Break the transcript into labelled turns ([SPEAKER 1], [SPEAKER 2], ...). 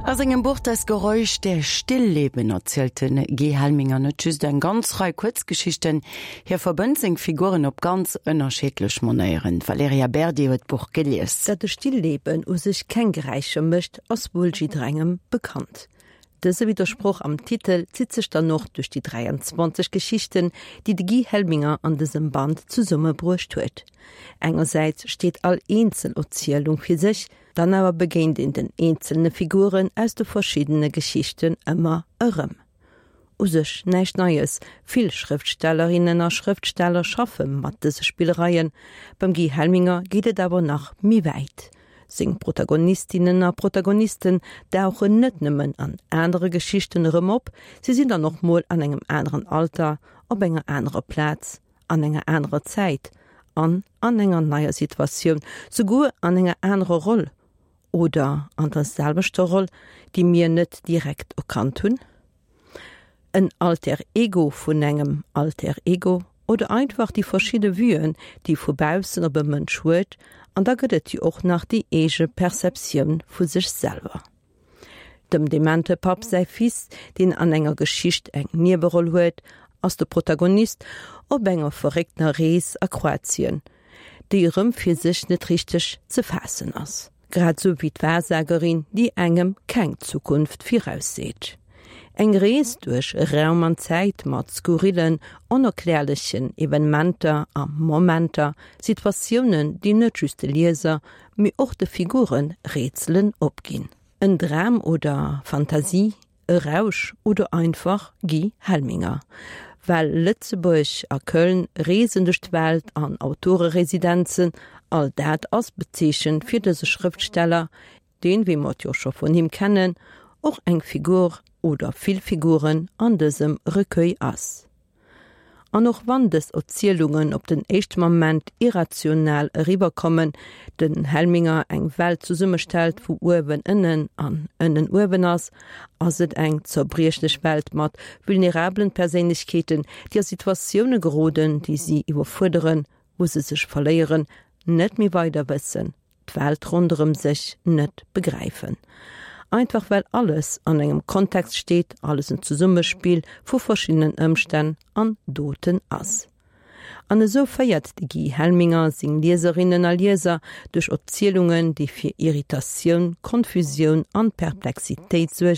[SPEAKER 1] A sengem Buch Das Geräusch der Stillleben erzielt de Guy Helminger net just eng ganz Rei Kuerzgeschichten, hie verbënnt seng Figuren op ganz ënnerschiddlech Manéieren. D'Valerija Berdi huet d'Buch gelies.
[SPEAKER 2] Datt e Stillleben u sech keng Geräischer mécht, ass wuel jidderengem bekannt. Dëse Widdersproch am Titel zitt sech dann och duerch déi 23 Geschichten, déi de Guy Helminger an dësem Band zesummebruecht huet. Engersäits steet all eenzel Erzielung fir sech, dann awer begéint een den eenzelne Figuren aus de verschiddene Geschichten ëmmer erëm. U sech näischt Neies, vill Schrëftstellerinnen a Schrëftsteller schaffe mat dëse Spillereien. Beim Guy Helminger geet et awer nach méi wäit. Seng Protagonistinnen a Protagonisten dauchen net nëmmen an anere Geschichten erëm op, si sinn dann och mol an engem aneren Alter, op enger anerer Plaz, an enger anerer Zäit an an enger neier Situatioun, souguer an enger anerer Roll oder an der selwechter Roll, déi mir net direkt erkannt hunn. En Alter Ego vun engem Alter Ego oder einfach déi verschidde Vuen, déi vu baussen op e Mënsch huet, an da gëtt et jo och nach déi eege Perceptioun vu sech selwer. Dem demente Papp säi Fils, deen an enger Geschicht eng Nieweroll huet, ass de Protagonist op enger verréckter Rees a Kroatien, déi erëm fir sech net richteg ze faassen ass. Grad sou wéi d'Wahrsagerin, déi engem keng Zukunft virausseet. Eng Rees duerch Raum an Zäit mat skurrillen, onerklärlechen Evenementer a Momenter, Situatiounen, déi net just de Lieser, mee och de Figure Rätselen opginn. En Dram oder Fantasie, e Rausch oder einfach Guy Helminger. Well Lëtzebuerg a Köln, Reesen duerch d'Welt an Autoreresidenzen, all dat ass bezeechent fir dëse Schrëftsteller, deen, wéi mer et jo scho vun him kennen, och eng Figur oder vill Figuren an dësem Recueil ass. An och wann dës Erzielungen op den éischte Moment irrational eriwwerkommen, den Helminger eng Welt zesummestellt, wou uewen ënnen an ënnen uewen ass, ass et eng zerbriechlech Welt mat vulnerabelen Perséinlechkeeten, déi a Situatioune geroden, déi si iwwerfuerderen, wou se sech verléieren, net méi weider wëssen. d'Welt ronderëm sech net begräifen. Einfach well alles an engem Kontext steet, alles en Zesummespill vu verschiddenen Ëmstänn an Doten ass. An esou féiert de Guy Helminger seng Lieserinnen a Lieser duerch Erzielungen, déi fir Irritatioun, Konfusioun an Perplexitéit suergen.